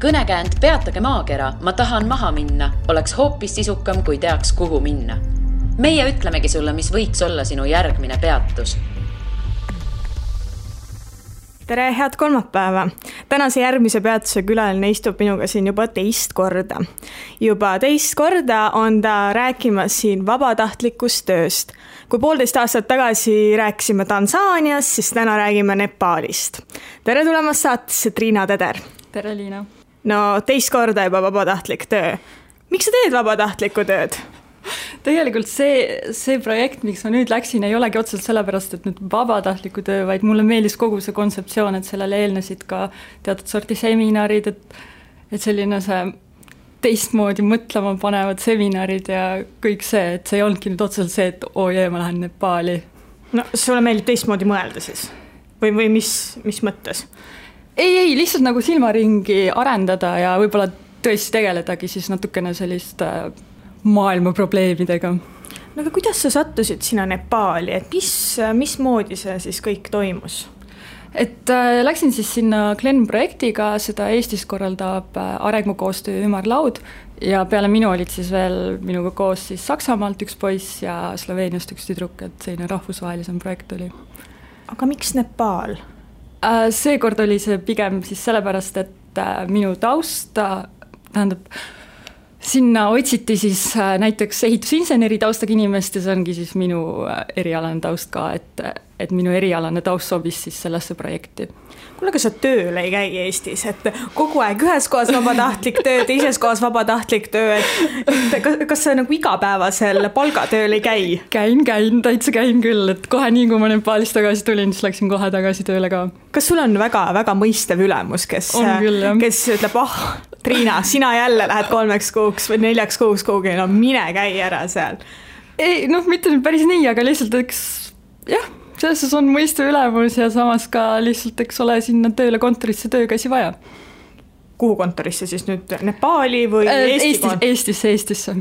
Kõnekäänd Peatage maakera, ma tahan maha minna, oleks hoopis sisukam, kui teaks, kuhu minna. Meie ütlemegi sulle, mis võiks olla sinu järgmine peatus. Tere, head kolmapäeva! Tänase järgmise peatuse külaline istub minuga siin juba teist korda. Juba teist korda on ta rääkimas siin vabatahtlikust tööst. Kui 1,5 aastat tagasi rääkisime Tansaanias, siis täna räägime Nepaalist. Tere tulemast saatesse, Triina Teder! Tere, Liina! No, teist korda juba vabatahtlik töö. Miks sa teed vabatahtlikku tööd? Tegelikult see projekt, miks ma nüüd läksin, ei olegi otseselt sellepärast, et nüüd vabatahtliku töö, vaid mulle meeldis kogu see kontseptsioon, et sellele eelnesid ka teatud sorti seminarid, et selline see teistmoodi mõtlema panevad seminarid ja kõik see, et see ei olnudki nüüd otseselt see, et ma lähen Nepaali. No, sulle meeldib teistmoodi mõelda siis? Või mis mõttes? Ei, lihtsalt nagu silmaringi arendada ja võib-olla tõesti tegeledagi siis natukene sellist maailma probleemidega. No aga kuidas sa sattusid sinna Nepaali, et mismoodi see siis kõik toimus? Et läksin siis sinna Glen projektiga, seda Eestis korraldab arengukoostöö ümarlaud ja peale minu olid siis veel minuga koos siis Saksamaalt üks poiss ja Sloveeniast üks tüdruk, et selline rahvusvahelisem projekt oli. Aga miks Nepaal? Seekord oli see pigem siis sellepärast, et minu taust, tähendab, sinna otsiti siis näiteks ehitusinseneri taustaga inimest ja see ongi siis minu erialane taust ka, et minu erialane taust sobis siis sellesse projekti. Kuule, aga sa tööl ei käi Eestis, et kogu aeg ühes kohas vabatahtlik töö, teises kohas vabatahtlik töö, et kas sa nagu igapäevasel palgatööl ei käi? Täitsa käin küll, et kohe nii, kui ma Nepaalist tagasi tulin, siis läksin kohe tagasi tööle ka. Kas sul on väga mõistev ülemus, kes ütleb, Triina, sina jälle lähed 3 kuuks või 4 kuuks kuhugi, no mine käi ära seal? Ei, mitte päris nii, aga lihtsalt selles on mõiste ülemus ja samas ka lihtsalt, ole sinna tööle kontorisse töökäsi vaja. Kuhu kontorisse siis nüüd? Nepaali või Eestisse?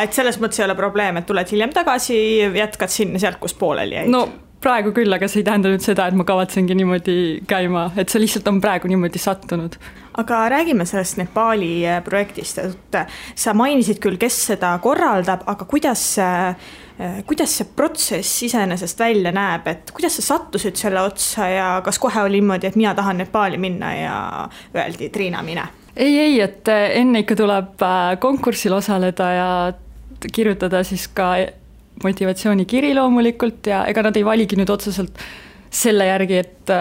Et selles mõttes ei ole probleem, et tuled hiljem tagasi, jätkad sinna sealt, kus pooleli jäid? No praegu küll, aga see ei tähenda nüüd seda, et ma kavatsengi niimoodi käima, et see lihtsalt on praegu niimoodi sattunud. Aga räägime sellest Nepaali projektist, et sa mainisid küll, kes seda korraldab, aga kuidas see protsess iseenesest välja näeb, et kuidas sa sattusid selle otsa ja kas kohe oli niimoodi, et mina tahan Nepaali minna ja öeldi, Triina, mine? Ei, et enne ikka tuleb konkursil osaleda ja kirjutada siis ka motivatsioonikiri loomulikult ja ega nad ei valigi nüüd otseselt selle järgi, et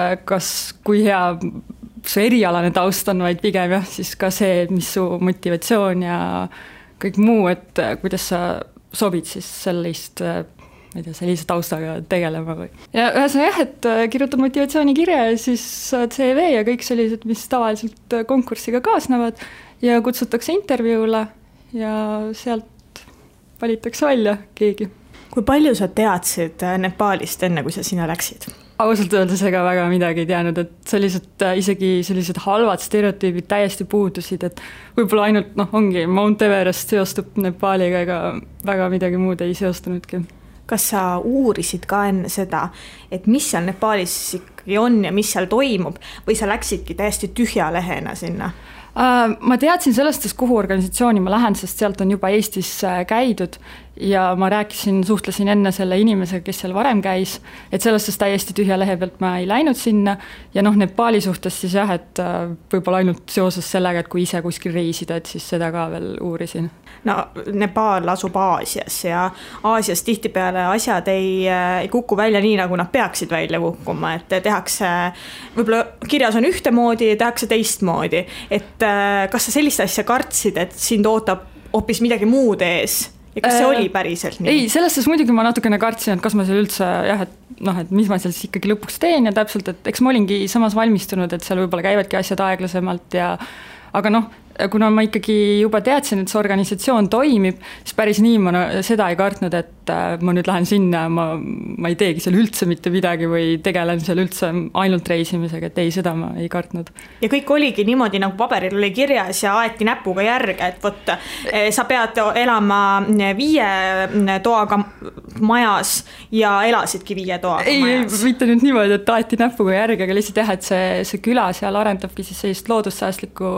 kui hea su erialane taust on, vaid pigem siis ka see, mis su motivatsioon ja kõik muu, et kuidas sa sobid siis sellise taustaga tegelema või. Ja ühesõnaga et kirjutad motivatsioonikirja ja siis CV ja kõik sellised, mis tavaliselt konkursiga kaasnevad ja kutsutakse intervjuule ja sealt valitakse välja keegi. Kui palju sa teadsid Nepaalist enne, kui sa sinna läksid? Ausalt öeldes ega väga midagi ei teadnud, et isegi sellised halvad stereotüübid täiesti puudusid, et võib-olla ainult ongi Mount Everest seostub Nepaaliga ega väga midagi muud ei seostunudki. Kas sa uurisid ka enne seda, et mis seal Nepaalis ikkagi on ja mis seal toimub või sa läksidki täiesti tühja lehena sinna? Ma teadsin sellest, kuhu organisatsiooni ma lähen, sest sealt on juba Eestis käidud ja ma suhtlesin enne selle inimesega, kes seal varem käis, et sellest täiesti tühja lehe pealt ma ei läinud sinna ja Nepaali suhtes siis et võib-olla ainult seoses sellega, et kui ise kuskil reisida, et siis seda ka veel uurisin. No Nepaal asub Aasias ja Aasias tihtipeale asjad ei kuku välja nii, nagu nad peaksid välja kukkuma, et tehakse, võib-olla kirjas on ühtemoodi ja tehakse teistmoodi, et kas sa sellist asja kartsid, et sind ootab hoopis midagi muud ees? Ja kas see oli päriselt nii? Ei, selles muidugi ma natukene kartsin, et kas ma seal üldse, et mis ma seal siis ikkagi lõpuks teen ja täpselt, et eks ma olingi samas valmistunud, et seal võib-olla käivadki asjad aeglasemalt aga kuna ma ikkagi juba teadsin, et see organisatsioon toimib, siis päris nii ma seda ei kartnud, et et ma nüüd lähen sinna, ma ei teegi seal üldse mitte midagi või tegelen seal üldse ainult reisimisega, et ei, seda ma ei kartnud. Ja kõik oligi niimoodi, nagu paberil oli kirjas ja aeti näpuga järge, et võt, sa pead elama 5 toaga majas ja elasidki 5 toaga majas. Ei, mitte nüüd niimoodi, et aeti näpuga järge, aga lihtsalt jah, et see küla seal arendabki siis sellist loodussäästlikku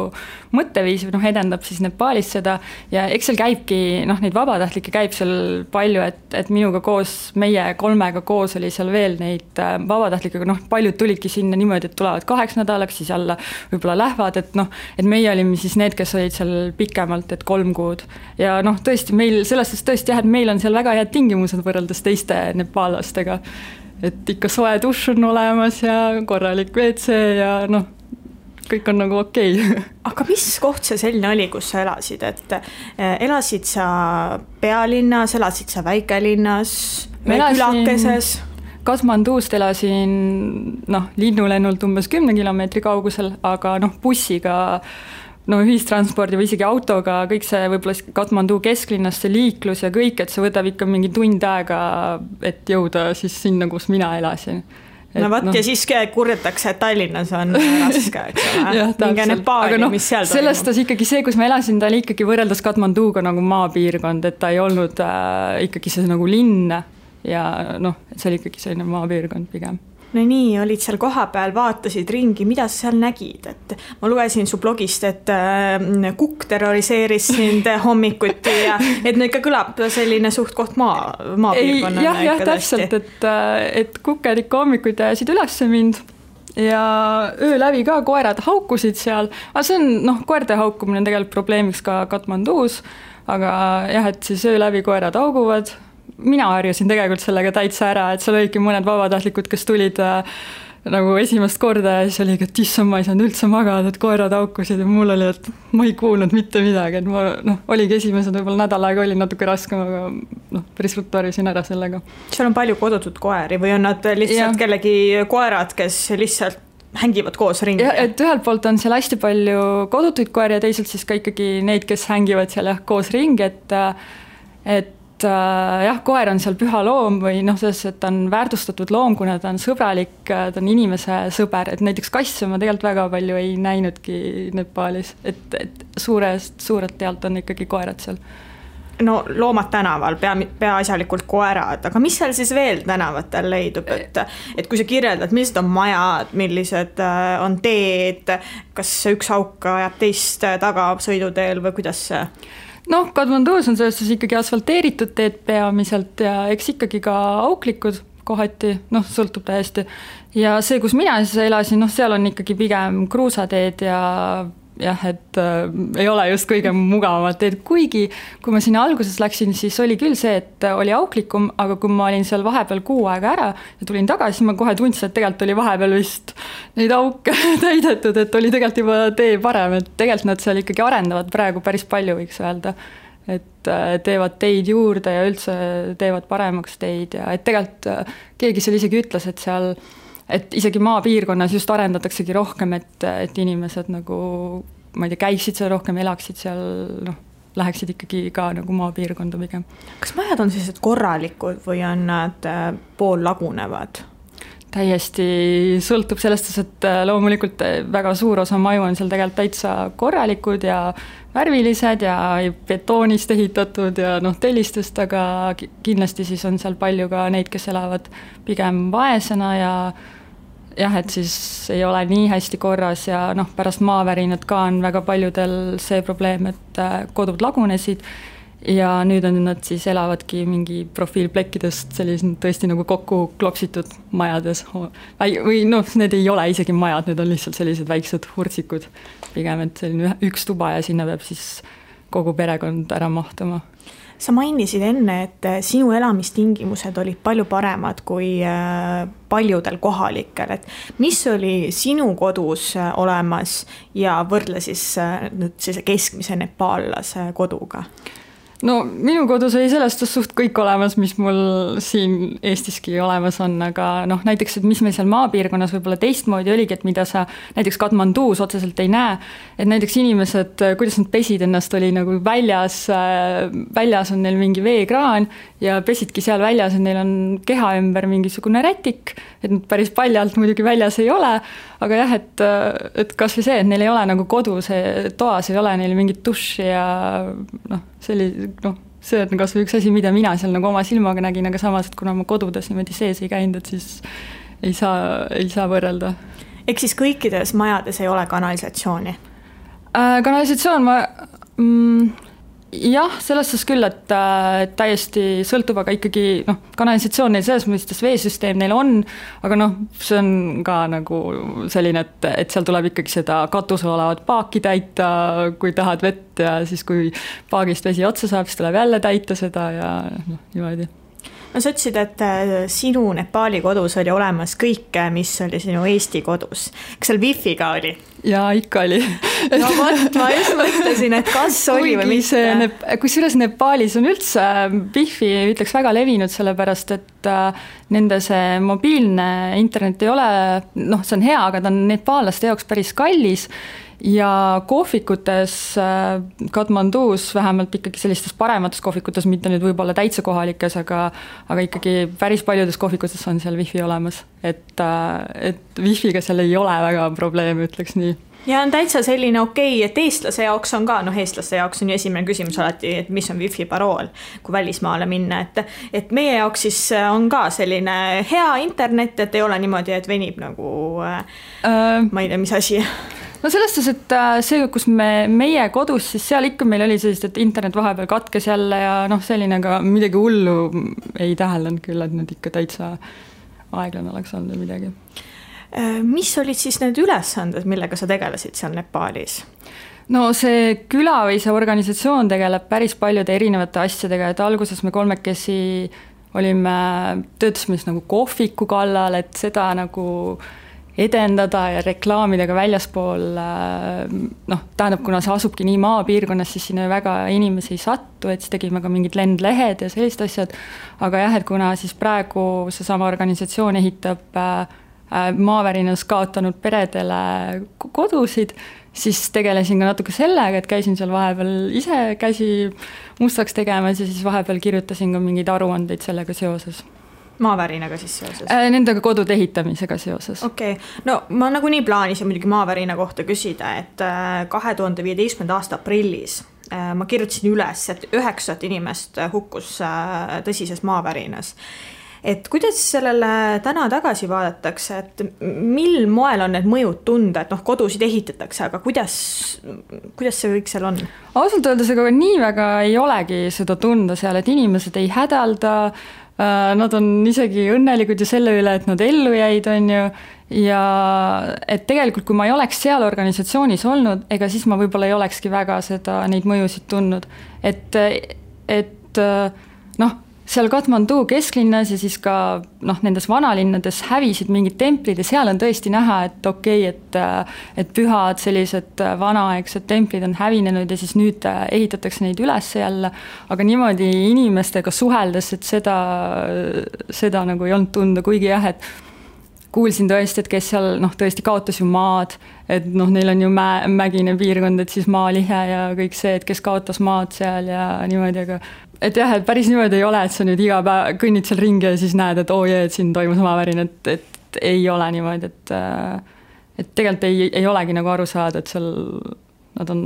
mõtteviisi, edendab siis Nepaalis seda ja eks seal käibki, neid vabatahtlikke käib seal palju, et minuga koos, meie 3 koos oli seal veel neid vabatahtlikke, paljud tulidki sinna niimoodi, et tulevad 8 nädalaks, siis jälle võib-olla lähevad, et meie olime siis need, kes olid seal pikemalt, et 3 kuud. Ja tõesti, meil sellest tõesti jah, et meil on seal väga head tingimused võrreldes teiste nepaallastega. Et ikka soe dušš on olemas ja korralik WC ja kõik on nagu okei. Aga mis koht see selline oli, kus sa elasid, et elasid sa pealinnas, elasid sa väikelinnas, külakeses? Katmandust elasin linnulennult umbes 10 kilomeetri kaugusel, aga bussiga, ühistranspordi või isegi autoga, kõik see võib-olla Katmandu kesklinnast, see liiklus ja kõik, et see võtab ikka mingi tund aega, et jõuda siis sinna, kus mina elasin. Ja siis kurdetakse, et Tallinnas on raske, eks ole. Minge Nepaali, mis seal toimub. Sellest ikkagi see, kus ma elasin, ta oli ikkagi võrreldes Katmanduga nagu maapiirkond, et ta ei olnud ikkagi see nagu linn ja see oli ikkagi selline maapiirkond pigem. No nii, olid seal kohapeal, vaatasid ringi, mida sa seal nägid, et ma lugesin su blogist, et kukk terroriseeris sind hommikuti ja et ikka kõlab selline suht koht maapiirkonnana. Jah, täpselt, et kukked ikka hommikuti ajasid üles mind ja öö läbi ka koerad haukusid seal, aga see on, koerte haukumine on tegelikult probleemiks ka Katmandus, aga jah, et siis öö läbi koerad hauguvad. Mina harjusin tegelikult sellega täitsa ära, et seal olidki mõned vabatahtlikud, kes tulid nagu esimest korda ja siis oligi, et issand, ma ei saanud üldse magada, et koerad haukusid ja mul oli, et ma ei kuulnud mitte midagi, et ma oligi esimesed võib-olla nädal aega oli natuke raskem, aga päris ruttu harjusin ära sellega. Seal on palju kodutud koeri või on nad lihtsalt kellegi koerad, kes lihtsalt hängivad koos ringi? Ja, et ühelt poolt on seal hästi palju kodutuid koeri ja teisalt siis ka ikkagi neid, kes hängivad seal koos ringi, et koer on seal püha loom või selles, et ta on väärtustatud loom, kuna ta on sõbralik, ta on inimese sõber, et näiteks kasse ma tegelikult väga palju ei näinudki Nepaalis, et suurelt tealt on ikkagi koerad seal. Loomad tänaval, peaasjalikult koerad, aga mis seal siis veel tänavatel leidub, et kui sa kirjeldad, millised on majad, millised on teed, kas üks auk ajab teist taga sõiduteel või kuidas see? Katmandus on sellest ikkagi asfalteeritud teed peamiselt ja eks ikkagi ka auklikud kohati, sõltub täiesti. Ja see, kus mina siis elasin, seal on ikkagi pigem kruusateed ja jah, et ei ole just kõige mugavamad teed, kuigi kui ma sinna alguses läksin, siis oli küll see, et oli auklikum, aga kui ma olin seal vahepeal 6 aega ära ja tulin tagasi, ma kohe tundsin, et tegelikult oli vahepeal vist neid auke täidetud, et oli tegelikult juba tee parem, et tegelikult nad seal ikkagi arendavad praegu päris palju, võiks öelda, et teevad teid juurde ja üldse teevad paremaks teid ja et tegelikult keegi seal isegi ütles, et seal et isegi maapiirkonnas just arendataksegi rohkem, et inimesed nagu, ma ei tea, käiksid seal rohkem, elaksid seal, läheksid ikkagi ka nagu maapiirkonda pigem. Kas majad on sellised korralikud või on nad pool lagunevad? Täiesti sõltub sellest, et loomulikult väga suur osa maju on seal tegelikult täitsa korralikud ja värvilised ja betoonist ehitatud ja tellistest, aga kindlasti siis on seal palju ka neid, kes elavad pigem vaesena ja jah, et siis ei ole nii hästi korras ja pärast maavärinat ka on väga paljudel see probleem, et kodud lagunesid ja nüüd on nad siis elavadki mingi profiilplekkidest sellised tõesti nagu kokku klopsitud majades või need ei ole isegi majad, need on lihtsalt sellised väiksed hurtsikud pigem, et selline üks tuba ja sinna peab siis kogu perekond ära mahtuma. Sa mainisid enne, et sinu elamistingimused olid palju paremad kui paljudel kohalikel, et mis oli sinu kodus olemas ja võrdle siis nüüd keskmise nepaallase koduga? no minu kodus oli sellest suht kõik olemas, mis mul siin Eestiski olemas on, aga noh, näiteks, et mis meil seal maapiirkonnas võib-olla teistmoodi oligi, et mida sa näiteks Katmanduus otseselt ei näe, et näiteks inimesed, kuidas nad pesid ennast, oli nagu väljas on neil mingi veekraan ja pesidki seal väljas, et neil on keha ümber mingisugune rätik, et nad päris paljalt muidugi väljas ei ole, aga jah, et kas või see, et neil ei ole nagu kodus, toas ei ole neil mingit duši ja noh, see on kas või üks asi, mida mina seal nagu oma silmaga nägin, aga samas, et kuna ma kodudes niimoodi sees ei käinud, et siis ei saa võrrelda. Ehk siis kõikides majades ei ole kanalisatsiooni? Kanalisatsioon jah, selles suhtes küll, et täiesti sõltub, aga ikkagi kanalisatsioon neil selles mõistes veesüsteem neil on, aga see on ka nagu selline, et seal tuleb ikkagi seda katusel olevat paaki täita, kui tahad vett ja siis kui paagist vesi otsa saab, siis tuleb jälle täita seda ja niimoodi. No sa ütlesid, et sinu Nepaali kodus oli olemas kõike, mis oli sinu Eesti kodus. Kas seal wifi ka oli? Jaa, ikka oli. No vot, ma just mõtlesin, et kas oli või mitte. Kusjuures Nepaalis on üldse wifi, ütleks, väga levinud, sellepärast, et nende see mobiilne internet ei ole, see on hea, aga ta on nepaallaste jaoks päris kallis ja kohvikutes Katmanduus, vähemalt ikkagi sellistes paremates kohvikutes, mitte nüüd võib-olla täitsa kohalikes, aga ikkagi päris paljudes kohvikutes on seal wifi olemas, et wifiga seal ei ole väga probleeme, ütleks nii. Ja on täitsa selline okei, et eestlase jaoks on ka, eestlaste jaoks on ju esimene küsimus alati, et mis on wifi parool, kui välismaale minna, et meie jaoks siis on ka selline hea internet, et ei ole niimoodi, et venib nagu ma ei tea, mis asi. No selles suhtes, et see, kus meie kodus, siis seal ikka meil oli sellist, et internet vahepeal katkes jälle ja selline ka midagi hullu ei täheldanud küll, et nüüd ikka täitsa aeglane oleks olnud või midagi. Mis olid siis need ülesanded, millega sa tegelesid seal Nepaalis? No see küla või see organisatsioon tegeleb päris paljude erinevate asjadega, et alguses me kolmekesi töötasime nagu kohviku kallal, et seda nagu edendada ja reklaamida ka väljaspool, tähendab, kuna see asubki nii maapiirkonnas, siis sinna väga inimesi ei sattu, et siis tegime ka mingid lendlehed ja sellised asjad, aga jah, et kuna siis praegu seesama organisatsioon ehitab maavärinas kaotanud peredele kodusid, siis tegelesin ka natuke sellega, et käisin seal vahepeal ise käsi mustaks tegemas ja siis vahepeal kirjutasin ka mingeid aruandeid sellega seoses. Maavärinaga siis seoses? Nendega kodude ehitamisega seoses. Okei. No ma nagunii plaanisin muidugi maavärina kohta küsida, et 2015. aasta aprillis ma kirjutasin üles, et 9 inimest hukkus tõsises maavärinas. Et kuidas sellele täna tagasi vaadatakse, et mil moel on need mõjud tunda, et kodusid ehitatakse, aga kuidas see kõik seal on? Ausalt öeldes, aga nii väga ei olegi seda tunda seal, et inimesed ei hädalda, nad on isegi õnnelikud ju selle üle, et nad ellu jäid, on ju, ja et tegelikult, kui ma ei oleks seal organisatsioonis olnud, ega siis ma võib-olla ei olekski väga neid mõjusid tundnud, et seal Katmandu kesklinnas ja siis ka nendes vanalinnades hävisid mingid templid ja seal on tõesti näha, et okei, et pühad sellised vanaaegsed templid on hävinenud ja siis nüüd ehitatakse neid üles jälle, aga niimoodi inimestega suheldes, et seda nagu ei olnud tunda, kuigi jah, et kuulsin tõesti, et kes seal tõesti kaotas ju maad, et neil on ju mägine piirkond, et siis maalihe ja kõik see, et kes kaotas maad seal ja niimoodi, aga et jah, et päris niimoodi ei ole, et sa nüüd iga päev kõnnid seal ringi ja siis näed, et et siin toimus maavärin, et ei ole niimoodi, et tegelikult ei olegi nagu aru saada, et seal nad on,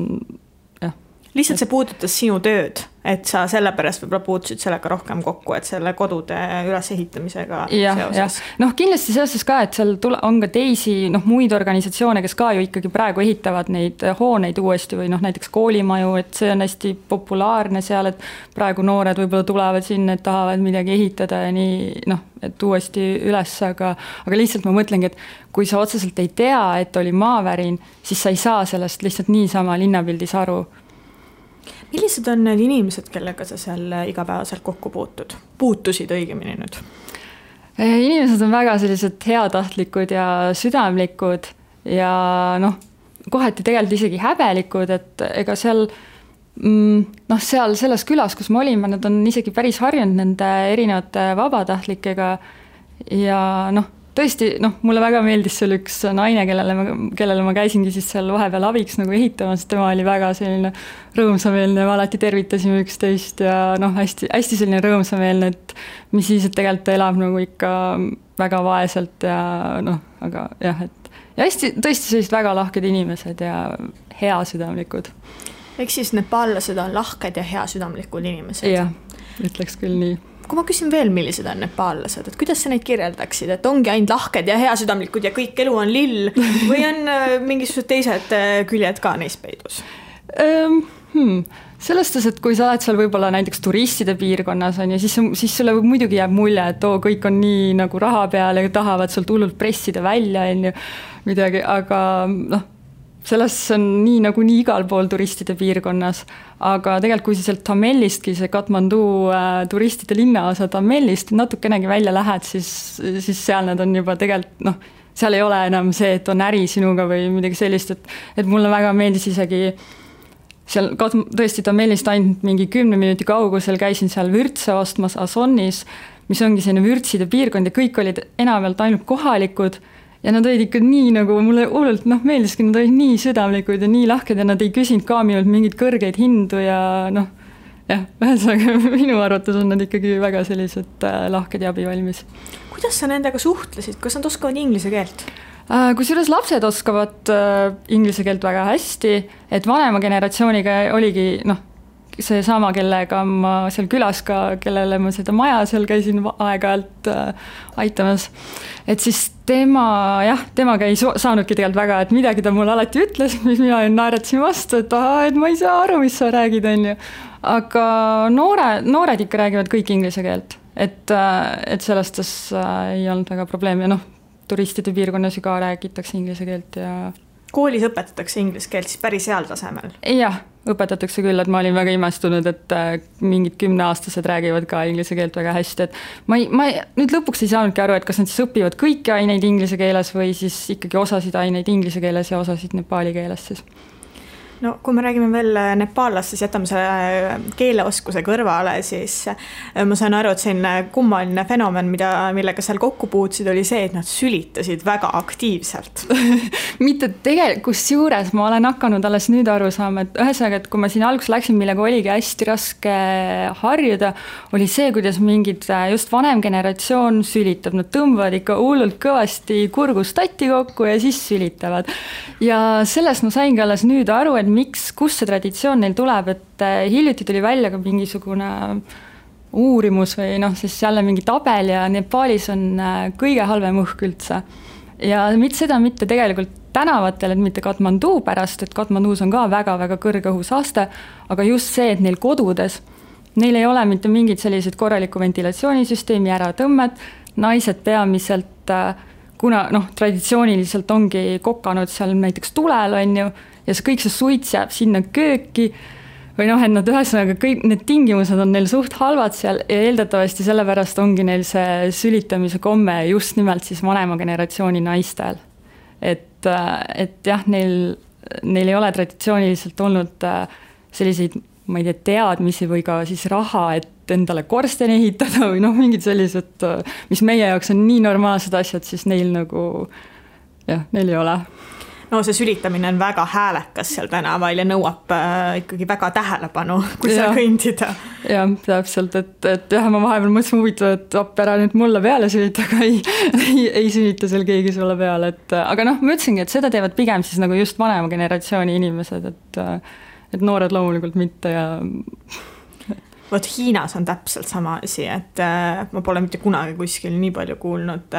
jah. Lihtsalt see puudutas sinu tööd, et sa sellepärast võib-olla puutusid sellega rohkem kokku, et selle kodude ülesehitamisega seoses. Kindlasti seoses ka, et seal on ka teisi muid organisatsioone, kes ka ju ikkagi praegu ehitavad neid hooneid uuesti või näiteks koolimaju, et see on hästi populaarne seal, et praegu noored võib-olla tulevad sinna, et tahavad midagi ehitada ja nii, et uuesti üles, aga lihtsalt ma mõtlengi, et kui sa otseselt ei tea, et oli maavärin, siis sa ei saa sellest lihtsalt niisama linnapildis aru. Millised on need inimesed, kellega sa seal igapäevaselt kokku puutusid õigemini nüüd? Inimesed on väga sellised heatahtlikud ja südamlikud ja kohati tegelikult isegi häbelikud, et ega seal noh, seal selles külas, kus me olime, nad on isegi päris harjunud nende erinevate vabatahtlikega ja noh, tõesti, noh, mulle väga meeldis seal üks naine, kellele ma käisingi siis seal vahepeal abiks nagu ehitamas, tema oli väga selline rõõmsameelne, me alati tervitasime üksteist ja noh, hästi selline rõõmsameelne, et mis siis, et tegelikult ta elab nagu ikka väga vaeselt ja noh, aga jah, et ja hästi, tõesti sellised väga lahked inimesed ja heasüdamlikud. Eks siis nepaallased on lahked ja heasüdamlikud inimesed? Jah, ütleks küll nii. Kui ma küsin veel, millised on nepaallased, et kuidas sa neid kirjeldaksid, et ongi ainult lahked ja heasüdamlikud ja kõik elu on lill või on mingisugused teised küljed ka neis peidus? Sellest, et kui sa oled seal võib-olla näiteks turistide piirkonnas on ja siis sulle muidugi jääb mulje, et kõik on nii nagu raha peal ja tahavad sult hullult pressida välja midagi, aga noh, sellest on nii igal pool turistide piirkonnas, aga tegelikult kui sa sealt Tamellistki, see Katmandu turistide linnaosa Tamellist natukenegi välja lähed, siis seal nad on juba tegelikult, noh, seal ei ole enam see, et on äri sinuga või midagi sellist, et mulle väga meeldis isegi seal tõesti Tamellist ainult mingi 10 minuti kaugusel käisin seal vürtse ostmas Asonnis, mis ongi selline vürtside piirkond ja kõik olid enamjaolt ainult kohalikud ja nad olid ikka nii nagu, mulle hullult meeldiski, nad olid nii südamlikud ja nii lahked ja nad ei küsinud ka minult mingeid kõrgeid hindu ja noh, jah, ühesõnaga minu arvates on nad ikkagi väga sellised lahked ja abivalmis. Kuidas sa nendega suhtlesid? Kas nad oskavad inglise keelt? Kusjuures lapsed oskavad inglise keelt väga hästi, et vanema generatsiooniga oligi see sama, kellega ma seal külas ka, kellele ma seda maja seal käisin aeg-ajalt aitamas. Et siis temaga ei saanudki tegelikult väga, et midagi ta mulle alati ütles, mis mina naeratasin vastu, et ma ei saa aru, mis sa räägid, on ju. Aga noored ikka räägivad kõik inglise keelt, et sellest ei olnud väga probleem ja turistide piirkonnas ju ka räägitakse inglise keelt ja koolis õpetatakse inglise keelt siis päris heal tasemel? Jah, õpetatakse küll, et ma olin väga imestunud, et mingid 10-aastased räägivad ka inglise keelt väga hästi, et ma nüüd lõpuks ei saanudki aru, et kas nad siis õpivad kõiki aineid inglise keeles või siis ikkagi osasid aineid inglise keeles ja osasid nepaali keeles siis. No kui me räägime veel nepaallast, siis jätame selle keeleoskuse kõrvale, siis ma saan aru, et selline kummaline fenomen, millega seal kokku puutsid, oli see, et nad sülitasid väga aktiivselt. Mitte tegelikult, kusjuures ma olen hakanud alles nüüd aru saama, et ühesõnaga, et kui ma siin alguses läksin, millega oligi hästi raske harjuda, oli see, kuidas mingid just vanem generatsioon sülitab. Nad tõmbavad ikka hullult kõvasti kurgustati kokku ja siis sülitavad. Ja sellest ma saingi alles nüüd aru, et kus see traditsioon neil tuleb, et hiljuti tuli välja ka mingisugune uurimus või siis jälle mingi tabel ja Nepaalis on kõige halvem õhk üldse. Ja seda mitte tegelikult tänavatel, et mitte Katmandu pärast, et Katmandus on ka väga-väga kõrge õhusaaste, aga just see, et neil kodudes, neil ei ole mitte mingid sellised korraliku ventilatsioonisüsteemi äratõmmed, naised peamiselt, kuna traditsiooniliselt ongi kokanud seal näiteks tulel, on ju, ja kõik see suits jääb sinna kööki või et nad ühesõnaga kõik need tingimused on neil suht halvad seal ja eeldatavasti sellepärast ongi neil see sülitamise komme just nimelt siis vanema generatsiooni naistel. Et jah, neil ei ole traditsiooniliselt olnud selliseid, ma ei tea, teadmisi või ka siis raha, et endale korsteni ehitada või mingid sellised, mis meie jaoks on nii normaalsed asjad, siis neil neil ei ole. No see sülitamine on väga häälekas seal tänaval ja nõuab ikkagi väga tähelepanu, kui seal kõndida. Jah, täpselt, et jah, ma vahepeal mõtlesin huvitav, et ära nüüd mulle peale sülita, aga ei sülita seal keegi sulle peale. Aga ma ütlesingi, et seda teevad pigem siis nagu just vanema generatsiooni inimesed, et noored loomulikult mitte ja Vot Hiinas on täpselt sama asi, et ma pole mitte kunagi kuskil nii palju kuulnud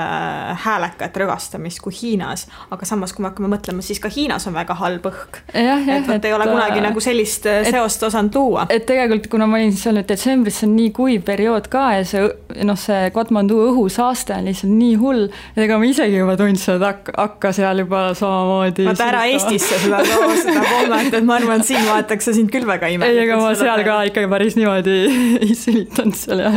häälekat rõgastamist kui Hiinas, aga samas kui me hakkame mõtlema, siis ka Hiinas on väga halb õhk. Et ei ole kunagi nagu sellist seost osanud luua. Et tegelikult, kuna ma olin seal detsembris, see on nii kuiv periood ka ja see Katmandu õhusaaste on lihtsalt nii hull, et ega ma isegi juba tundsin, et hakka seal juba samamoodi. Vaata ära Eestisse seda pommet, et ma arvan, et siin vaataks sind küll väga imelik. Ei, ega ma seal ka ikkagi päris niimoodi ei sülitanud seal ja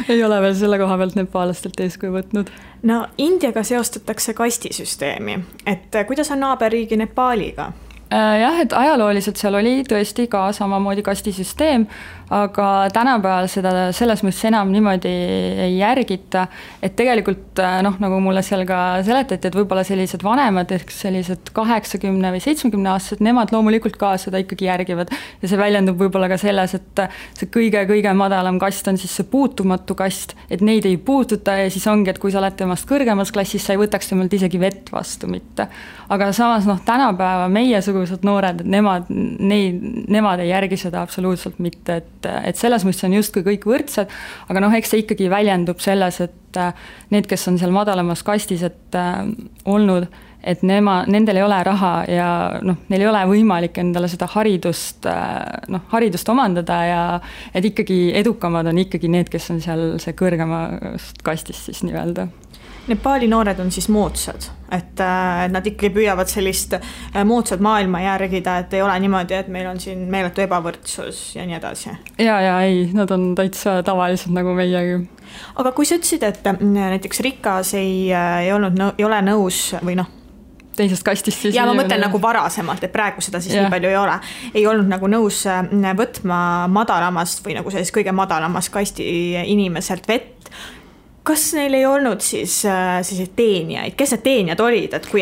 ei ole veel selle koha pealt nepaalastelt eeskuju võtnud. No Indiaga seostatakse kastisüsteemi, et kuidas on naaberriigi Nepaaliga? Jah, et ajalooliselt seal oli tõesti ka samamoodi kastisüsteem, aga tänapäeval seda selles mõttes enam niimoodi ei järgita, et tegelikult nagu mulle seal ka seletati, et võib-olla sellised vanemad, ehk sellised 80 või 70 aastased, nemad loomulikult ka seda ikkagi järgivad ja see väljendub võib-olla ka selles, et see kõige madalam kast on siis see puutumatu kast, et neid ei puututa ja siis ongi, et kui sa oled temast kõrgemas klassis, sa ei võtaks temalt isegi vett vastu mitte. Aga samas tänapäeva meiesugused noored, et nemad ei järgi seda absoluutselt mitte, et selles mõttes on justkui kõik võrdsed, aga eks see ikkagi väljendub selles, et need, kes on seal madalamas kastis, et olnud, et nendel ei ole raha ja neil ei ole võimalik endale seda haridust omandada ja et ikkagi edukamad on ikkagi need, kes on seal see kõrgemast kastist siis nii-öelda. Nepaali noored on siis moodsad, et nad ikkagi püüavad sellist moodsat maailma järgida, et ei ole niimoodi, et meil on siin meeletu ebavõrdsus ja nii edasi. Ja ei, nad on täitsa tavalised nagu meiegi. Aga kui sa ütlesid, et näiteks rikas ei ole nõus või teisest kastist siis. Ja ma mõtlen nagu varasemalt, et praegu seda siis nii palju ei ole. Ei olnud nagu nõus võtma madalamast või nagu selles kõige madalamast kasti inimeselt vett. Kas neil ei olnud siis teenijaid? Kes need teenijad olid, et kui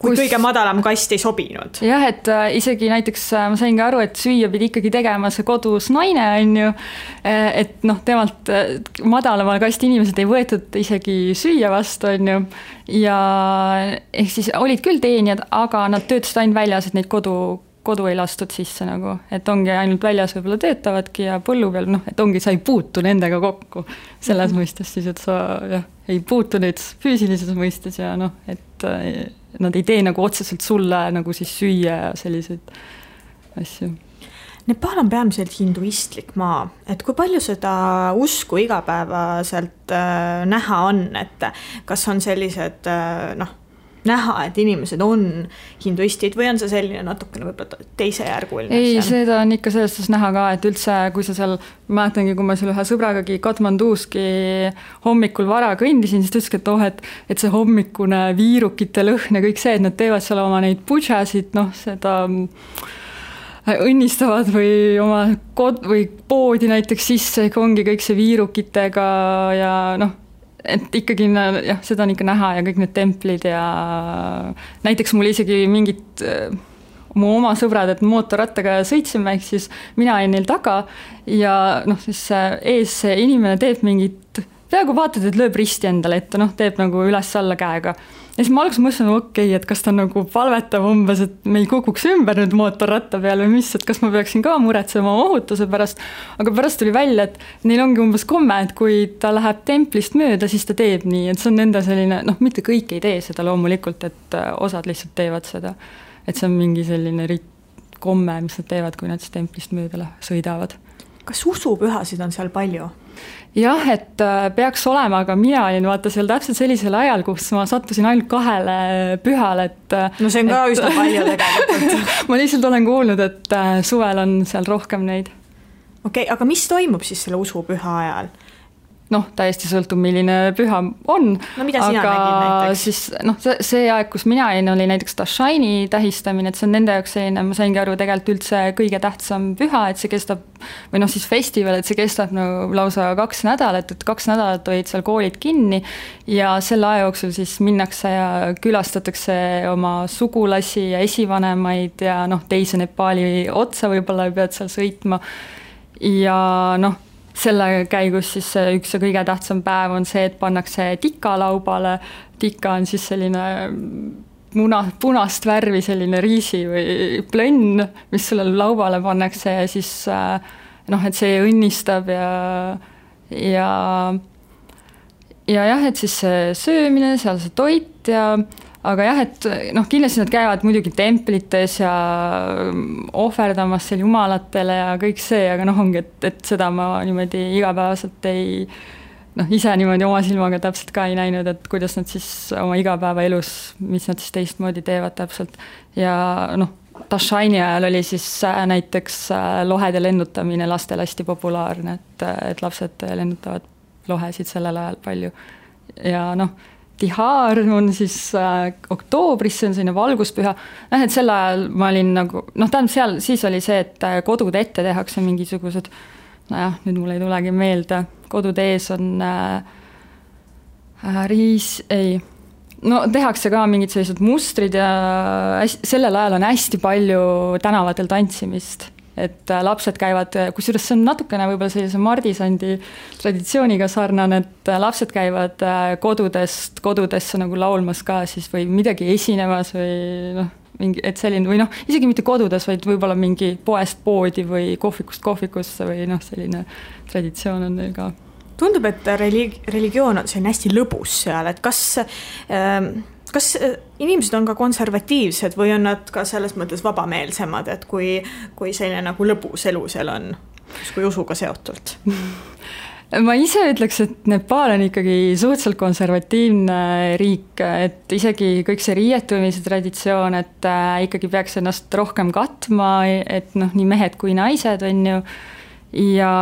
kõige madalam kast ei sobinud? Jah, et isegi näiteks ma sain ka aru, et süüa pidi ikkagi tegema see kodus naine, on ju, et temalt madalamal kasti inimesed ei võetud isegi süüa vastu, on ju, ja ehk siis olid küll teenijad, aga nad töötasid ainult väljas, et neid kodu ei lastud sisse nagu, et ongi ainult väljas võib-olla töötavadki ja põllu peal, et ongi, sa ei puutu nendega kokku selles mõistes siis, et sa ei puutu neid füüsilises mõistes ja et nad ei tee nagu otseselt sulle nagu siis süüa ja selliseid asju. Nepal on peamiselt hinduistlik maa, et kui palju seda usku igapäevaselt näha on, et kas on sellised näha, et inimesed on hinduistid või on see selline natukene võib-olla teisejärguline? Ei, seda on ikka selles näha ka, et üldse, kui sa seal, mäletangi, kui ma seal ühe sõbragagi Katmanduski hommikul vara kõndisin, siis ta ütleski, et see hommikune viirukite lõhn ja kõik see, et nad teevad seal oma neid pudžasid, seda õnnistavad või oma või poodi näiteks sisse, ongi kõik see viirukitega ja et ikkagi seda on ikka näha ja kõik need templid ja näiteks mul isegi mingid mu oma sõbrad, et mootorrattaga sõitsime, ehk siis mina olin neil taga ja siis ees see inimene teeb mingit, peaaegu vaatad, et lööb risti endale ette, teeb nagu üles-alla käega. Ja siis ma alguses mõtlesin, okei, et kas ta nagu palvetab umbes, et me ei kukuks ümber nüüd mootorratta peal või mis, et kas ma peaksin ka muretsema ohutuse pärast, aga pärast tuli välja, et neil ongi umbes komme, et kui ta läheb templist mööda, siis ta teeb nii, et see on nende selline, mitte kõik ei tee seda loomulikult, et osad lihtsalt teevad seda, et see on mingi selline komme, mis nad teevad, kui nad siis templist mööda sõidavad. Kas usupühasid on seal palju? Jah, et peaks olema, aga mina olin vaata seal täpselt sellisel ajal, kus ma sattusin ainult 2 pühale, et no see on ka üsna palju tegelikult. Ma lihtsalt olen kuulnud, et suvel on seal rohkem neid. Okei, aga mis toimub siis selle usupüha ajal? Täiesti sõltub, milline püha on. No mida sina nägid näiteks? Siis, see aeg, kus mina olin, oli näiteks Dashaini tähistamine, et see on nende jaoks selline, ma saingi aru tegelikult üldse kõige tähtsam püha, et see kestab, või siis festival, et see kestab lausa 2 nädalat, et 2 nädalat olid seal koolid kinni ja selle aja jooksul siis minnakse ja külastatakse oma sugulasi ja esivanemaid ja teise Nepali otsa võib-olla pead seal sõitma ja selle käigus siis üks ja kõige tähtsam päev on see, et pannakse tika laubale. Tika on siis selline punast värvi selline riisi või plönn, mis selle laubale pannakse ja siis et see õnnistab ja jah, et siis see söömine, seal see toit ja aga jah, et kindlasti nad käivad muidugi templites ja ohverdamas seal jumalatele ja kõik see, aga ongi, et seda ma niimoodi igapäevaselt ise niimoodi oma silmaga täpselt ka ei näinud, et kuidas nad siis oma igapäevaelus, mis nad siis teistmoodi teevad täpselt ja Dashaini ajal oli siis näiteks lohede lennutamine lastel hästi populaarne, et lapsed lennutavad lohesid sellel ajal palju ja Tihar on siis oktoobris, see on selline valguspüha. Et sel ajal ma olin nagu, tähendab seal siis oli see, et kodude ette tehakse mingisugused, nüüd mul ei tulegi meelde, kodude ees on tehakse ka mingid sellised mustrid ja sellel ajal on hästi palju tänavatel tantsimist. Et lapsed käivad, kusjuures see on natukene võib-olla sellise Mardisandi traditsiooniga sarnane, et lapsed käivad kodudesse nagu laulmas ka siis või midagi esinemas või mingi, et selline, või isegi mitte kodudes, vaid võib-olla mingi poest poodi või kohvikust kohvikusse või selline traditsioon on neil ka. Tundub, et religioon on selline hästi lõbus seal, et kas inimesed on ka konservatiivsed või on nad ka selles mõttes vabameelsemad, et kui selline nagu lõbus elu seal on, kui usuga seotult? Ma ise ütleks, et Nepal on ikkagi suhteliselt konservatiivne riik, et isegi kõik see riietumise traditsioon, et ikkagi peaks ennast rohkem katma, et nii mehed kui naised on ju, ja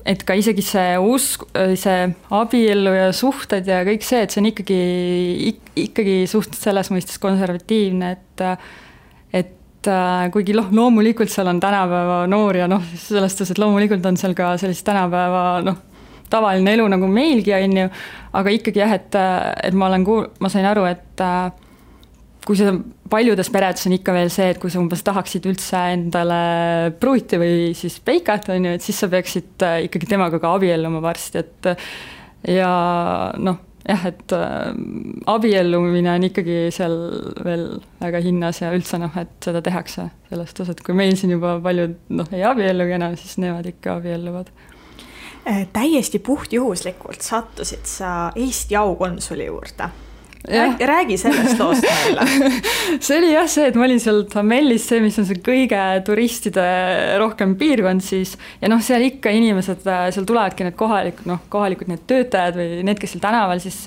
et ka isegi see usk, see abiellu ja suhted ja kõik see, et see on ikkagi suht selles mõistes konservatiivne, et kuigi loomulikult seal on tänapäeva noor ja selles tões, et loomulikult on seal ka sellist tänapäeva tavaline elu nagu meilgi on ju, aga ikkagi jah, et ma sain aru, et kui see paljudes peredes on ikka veel see, et kui sa umbes tahaksid üldse endale pruuti või siis peikat, on ju, et siis sa peaksid ikkagi temaga ka abielluma varsti, et ja et abiellumine on ikkagi seal veel väga hinnas ja üldse et seda tehakse sellest osas, et kui meil siin juba paljud ei abiellugi enam, siis nemad ikka abielluvad. Täiesti puhtjuhuslikult sattusid sa Eesti aukonsuli juurde. Räägi sellest loost meile. See oli jah see, et ma olin seal Tamellis, see, mis on see kõige turistide rohkem piirkond siis, ja seal ikka inimesed, seal tulevadki need kohalikud need töötajad või need, kes seal tänaval siis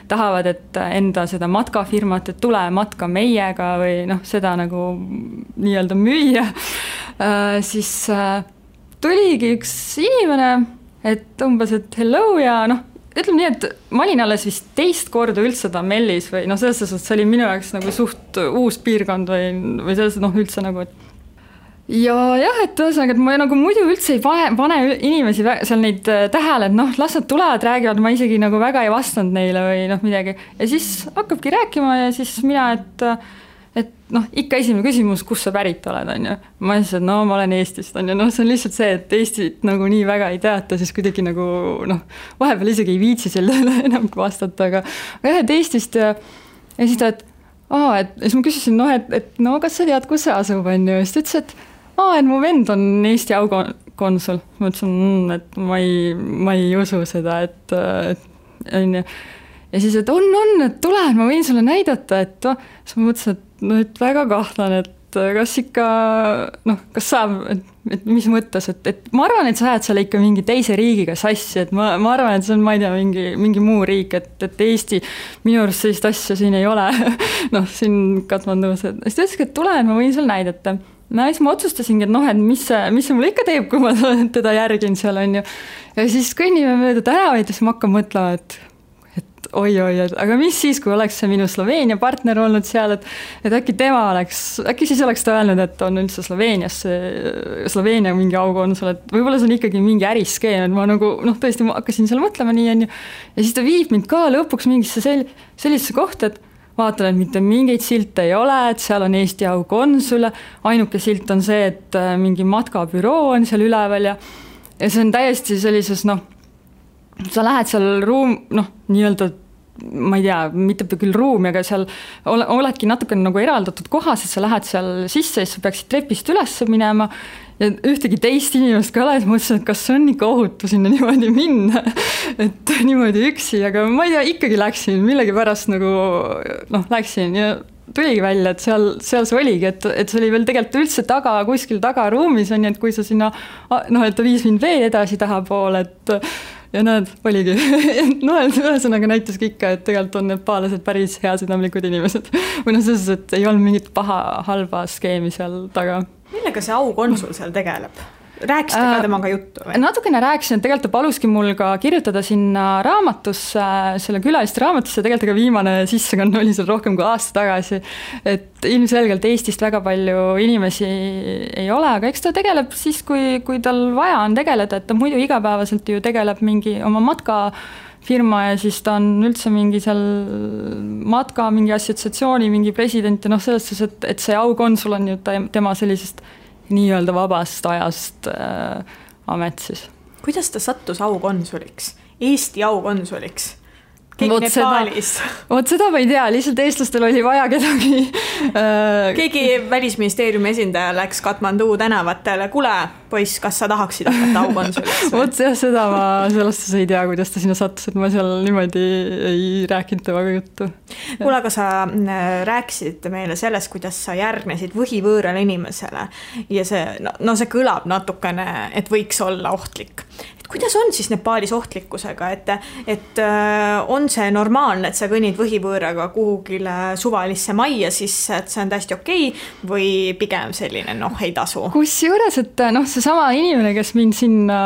tahavad, et enda seda matkafirmat, et tule matka meiega või seda nagu nii-öelda müüa, siis tuligi üks inimene, et umbes, et hello ja ütleme nii, et ma olin alles vist teist korda üldse Tamellis või selles suhtes, see oli minu jaoks nagu suht uus piirkond või selles üldse nagu, et ja jah, et ühesõnaga, et ma nagu muidu üldse ei pane inimesi seal neid tähele, et las nad tulevad, räägivad, ma isegi nagu väga ei vastanud neile või midagi ja siis hakkabki rääkima ja siis mina, et ikka esimene küsimus, kus sa pärit oled, on ju. Ma ütlesin, et ma olen Eestist, on ju. See on lihtsalt see, et Eestit nagu nii väga ei teata, siis kuidagi nagu, vahepeal isegi ei viitsi sellele enam vastata, aga jah, et Eestist ja siis ta, et siis ma küsisin, et kas sa tead, kus see asub, on ju. Siis ta ütles, et mu vend on Eesti aukonsul. Ma ütlesin, et ma ei usu seda, et on ju. Ja siis, et on, et tule, ma võin sulle näidata, et siis ma mõtlesin, et väga kahtlan, et kas ikka, kas saab, et mis mõttes, et ma arvan, et sa ajad seal ikka mingi teise riigiga sassi, et ma arvan, et see on, ma ei tea, mingi muu riik, et Eesti, minu arust sellist asja siin ei ole, siin Katmandus, et siis ta ütleski, et tule, ma võin sulle näidata. Siis ma otsustasingi, et mis see mulle ikka teeb, kui ma teda järgin seal, on ju. Ja siis kõnnime mööda tänavaid ja siis ma hakkan mõtlema, et oi, aga mis siis, kui oleks see minu Sloveenia partner olnud seal, et äkki siis oleks ta öelnud, et on üldse Sloveenia mingi aukonsul, et võib-olla see on ikkagi mingi äriskeem, et ma nagu, tõesti ma hakkasin seal mõtlema nii, on ju. Ja siis ta viib mind ka lõpuks mingisse sellisesse kohta, et vaatan, et mitte mingeid silte ei ole, et seal on Eesti aukonsul, ainuke silt on see, et mingi matkabüroo on seal üleval ja see on täiesti sellises, sa lähed seal nii-öelda, ma ei tea, mitte küll ruumi, aga seal oledki natuke nagu eraldatud kohas, et sa lähed seal sisse ja sa peaksid trepist üles minema ja ühtegi teist inimest ka ole, et mõtlesin, et kas on ikka ohutu sinna niimoodi minna, et niimoodi üksi, aga ma ei tea, ikkagi läksin, millegi pärast nagu läksin ja tuligi välja, et seal see oligi, et see oli veel tegelikult üldse kuskil tagaruumis on, et kui sa sinna, et ta viis mind veel edasi tahapoole, et ja näed, oligi. Ühesõnaga näitaski ikka, et tegelikult on nepaalased päris heasüdamlikud inimesed. Või selles, et ei olnud mingit halba skeemi seal taga. Millega see aukonsul seal tegeleb? rääkisite ka temaga juttu või? Natukene rääkisin, et tegelikult ta paluski mul ka kirjutada sinna raamatusse, selle külaliste raamatusse, tegelikult ka viimane sissekanne oli seal rohkem kui aasta tagasi, et ilmselgelt Eestist väga palju inimesi ei ole, aga eks ta tegeleb siis, kui tal vaja on tegeleda, et ta muidu igapäevaselt ju tegeleb mingi oma matkafirma ja siis ta on üldse mingi seal matka, mingi assotsiatsiooni, mingi president ja selles suhtes, et see aukonsul on ju tema sellisest nii-öelda vabast ajast amet siis. Kuidas ta sattus aukonsuliks? Eesti aukonsuliks? Keegi Nepaalis? Seda ma ei tea, lihtsalt eestlastel oli vaja kedagi. Keegi välisministeeriumi esindaja läks Katmandu tänavatele, kuule, poiss, kas sa tahaksid hakata aukonsuliks? Seda ma sellest ei tea, kuidas ta sinna sattus, et ma seal niimoodi ei rääkinud temaga juttu. Kuule, aga sa rääkisid meile sellest, kuidas sa järgnesid võhivõõrale inimesele ja see kõlab natukene, et võiks olla ohtlik. Kuidas on siis Nepaalis ohtlikkusega, et on see normaalne, et sa kõnnid võhivõõraga kuhugile suvalisse majja sisse, et see on täiesti okei või pigem selline, ei tasu? Kusjuures, et seesama inimene, kes mind sinna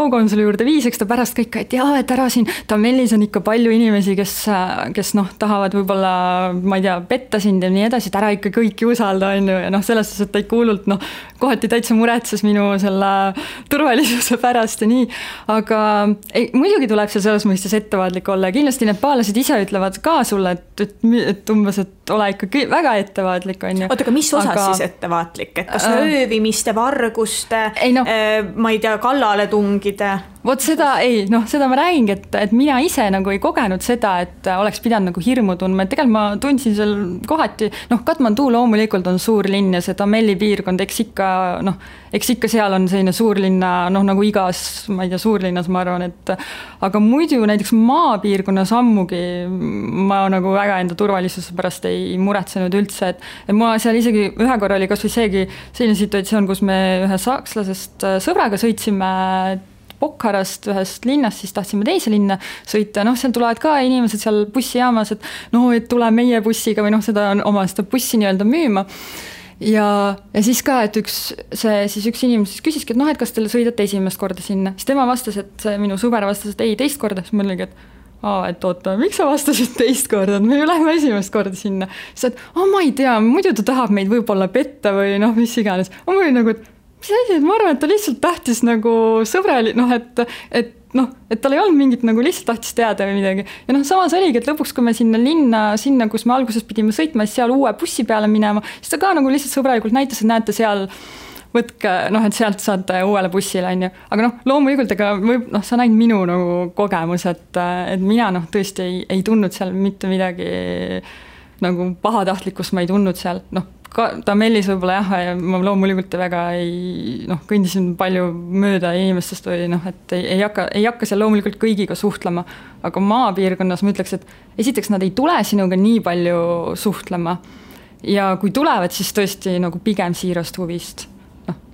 aukonsuli juurde viis, eks ta pärast kõik, et ära siin Tamellis on ikka palju inimesi, kes tahavad võib-olla, ma ei tea, petta sind ja nii edasi, et ära ikka kõiki usalda, on ju, ja selles suhtes, et ta ikka hullult, kohati täitsa muretses minu selle turvalisuse pärast ja nii. Aga muidugi tuleb seal selles mõistes ettevaatlik olla ja kindlasti nepaalased ise ütlevad ka sulle, et umbes, et ole ikkagi väga ettevaatlik, on ju. Oota, aga mis osas siis ettevaatlik? Et kas öövimiste, varguste, ma ei tea, kallale tungide? Vot seda seda ma räägingi, et mina ise ei kogenud seda, et oleks pidanud hirmu tundma, et tegelikult ma tundsin seal kohati, Katmandu loomulikult on suur linn ja see Tamelli piirkond, eks ikka seal on selline suurlinna, nagu igas, ma ei tea, suurlinnas ma arvan, et aga muidu näiteks maapiirkonnas ammugi ma väga enda turvalisuse pärast ei muretsenud üldse, et ma seal isegi ühe korra oli kas või seegi selline situatsioon, kus me ühe sakslasest sõbraga sõitsime Bokharast ühest linnast, siis tahtsime teise linna sõita, seal tulevad ka inimesed seal bussijaamas, et tule meie bussiga või seda bussi nii-öelda müüma. Ja siis ka, et üks inimene küsiski, et kas teile sõidate esimest korda sinna. Siis tema vastas, et see minu sõber vastas, et ei, teist korda. Siis mõtlegi, et oota, miks sa vastasid teist korda, et me ju lähme esimest korda sinna. Siis et ma ei tea, muidu ta tahab meid võib-olla petta või mis iganes. Ma mõtlen mis asi, et ma arvan, et ta lihtsalt tahtis sõbrali, et tal ei olnud mingit lihtsalt tahtis teada või midagi. Ja samas oligi, et lõpuks, kui me sinna, kus me alguses pidime sõitma, siis seal uue bussi peale minema, siis ta ka lihtsalt sõbralikult näitas, et näete seal, võtke, et sealt saate uuele bussile, on ju. Aga loomulikult, sa näid minu kogemus, et mina tõesti ei tundnud seal mitte midagi pahatahtlikkust ma ei tundnud seal, Tamellis võib-olla ma loomulikult väga kõndisin palju mööda inimestest või et ei hakka seal loomulikult kõigiga suhtlema, aga maapiirkonnas ma ütleks, et esiteks nad ei tule sinuga nii palju suhtlema ja kui tulevad, siis tõesti pigem siirast huvist.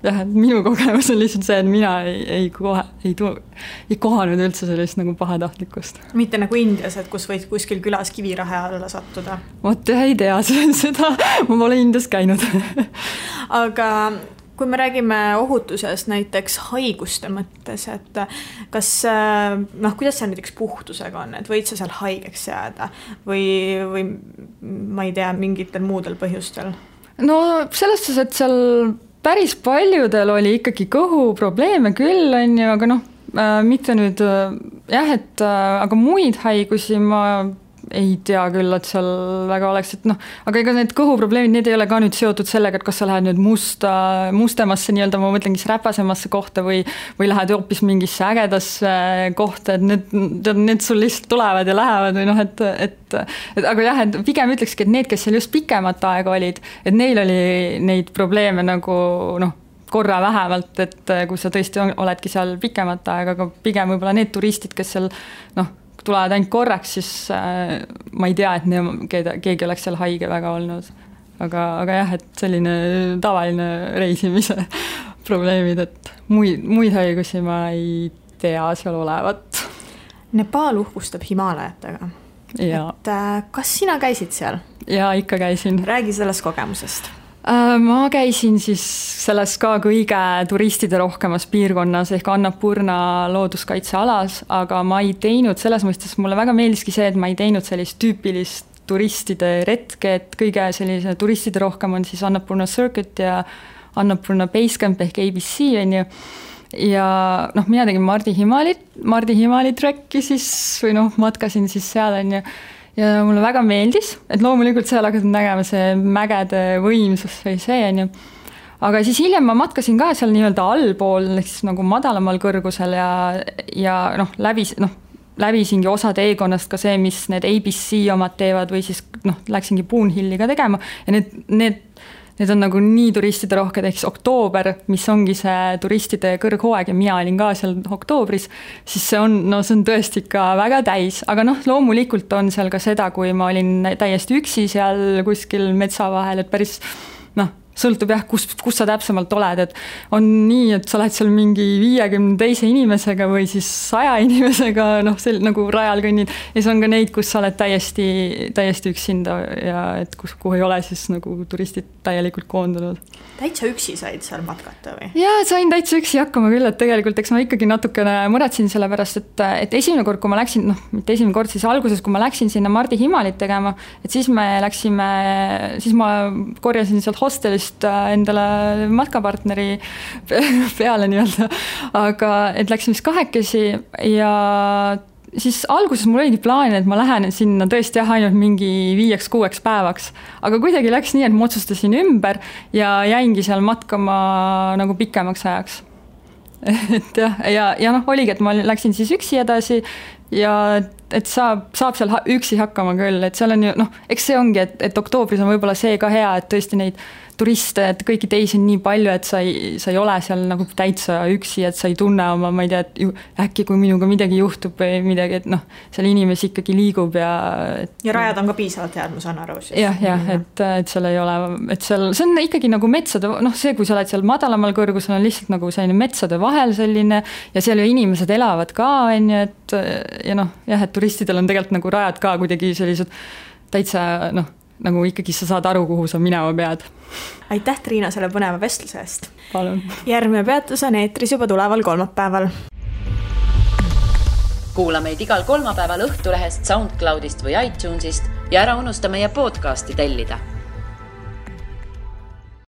Minu kogemus on lihtsalt see, et mina ei kohanud üldse sellist pahatahtlikkust. Mitte nagu Indias, et kus võid kuskil külas kivirahe alla sattuda? Vot ei tea seda, ma pole Indias käinud. Aga kui me räägime ohutusest näiteks haiguste mõttes, et kas, kuidas see näiteks puhtusega on, et võid sa seal haigeks jääda või ma ei tea, mingitel muudel põhjustel? Selles suhtes, et seal päris paljudel oli ikkagi kõhuprobleeme küll, on ju, aga mitte nüüd, aga muid haigusi ma ei tea küll, et seal väga oleks, et aga ega need kõhuprobleemid, need ei ole ka nüüd seotud sellega, et kas sa lähed nüüd mustemasse nii-öelda, ma mõtlengi räpasemasse kohta või lähed hoopis mingisse ägedasse kohta, et need sul lihtsalt tulevad ja lähevad või aga et pigem ütlekski, et need, kes seal just pikemat aega olid, et neil oli neid probleeme korra vähemalt, et kui sa tõesti oledki seal pikemat aega, aga pigem võib-olla need turistid, kes seal tulevad ainult korraks, siis ma ei tea, et keegi oleks seal haige väga olnud. Aga et selline tavaline reisimise probleemid, et muid haigusi ma ei tea seal olevat. Nepaal uhkustab Himaalajatega. Et kas sina käisid seal? Jaa, ikka käisin. Räägi sellest kogemusest. Ma käisin siis selles ka kõige turistide rohkemas piirkonnas ehk Annapurna looduskaitsealas, aga ma ei teinud selles mõistes, mulle väga meeldiski see, et ma ei teinud sellist tüüpilist turistide retke, et kõige sellise turistide rohkem on siis Annapurna Circuit ja Annapurna Basecamp ehk ABC, on ju. Ja mina tegin Mardi Himali trekki siis või matkasin siis seal, on ju. Ja mulle väga meeldis, et loomulikult seal hakkasin nägema see mägede võimsus või see, on ju. Aga siis hiljem ma matkasin ka seal nii-öelda allpool, siis nagu madalamal kõrgusel ja läbisingi osad Egonast ka see, mis need ABC omad teevad või siis läksingi Boonhilli ka tegema ja need on nagu nii turistide rohked, ehk siis oktoober, mis ongi see turistide kõrghooaeg ja mina olin ka seal oktoobris, siis see on tõesti ikka väga täis, aga loomulikult on seal ka seda, kui ma olin täiesti üksi seal kuskil metsa vahel, et päris sõltub jah, kus sa täpsemalt oled, et on nii, et sa oled seal mingi 50 teise inimesega või siis 100 inimesega, nagu rajal kõnnid, ja siis on ka neid, kus sa oled täiesti üksinda ja et kuhu ei ole siis nagu turistid täielikult koondunud. Täitsa üksi said seal matkata või? Jaa, sain täitsa üksi hakkama küll, et tegelikult eks ma ikkagi natukene muretsin selle pärast, et esimene kord, kui ma läksin, mitte esimene kord, siis alguses, kui ma läksin sinna Mardi Himalit tegema, et siis ma korjasin sealt hostelist endale matkapartneri peale nii-öelda, aga et läksin vist 2 ja siis alguses mul oligi plaan, et ma lähen sinna tõesti ainult mingi 5-6 päevaks, aga kuidagi läks nii, et ma otsustasin ümber ja jäingi seal matkama nagu pikemaks ajaks. Et ja oligi, et ma läksin siis üksi edasi ja et saab seal üksi hakkama küll, et seal on ju, eks see ongi, et oktoobris on võib-olla see ka hea, et tõesti neid turiste, et kõiki teisi on nii palju, et sa ei ole seal nagu täitsa üksi, et sa ei tunne oma, ma ei tea, et äkki kui minuga midagi juhtub või midagi, et seal inimesi ikkagi liigub ja rajad on ka piisavalt head, ma saan aru. Jah, et seal ei ole, et seal, see on ikkagi nagu metsade, see, kui sa oled seal madalamal kõrgusel, on lihtsalt nagu selline metsade vahel selline ja seal ju inimesed elavad ka, on ju, et et turistidel on tegelikult nagu rajad ka kuidagi sellised täitsa, nagu ikkagi sa saad aru, kuhu sa minema pead. Aitäh, Triina, selle põneva vestluse eest. Palun. Järgmine peatus on eetris juba tuleval kolmapäeval. Kuula meid igal kolmapäeval Õhtulehest, SoundCloudist või iTunesist ja ära unusta meie podcasti tellida.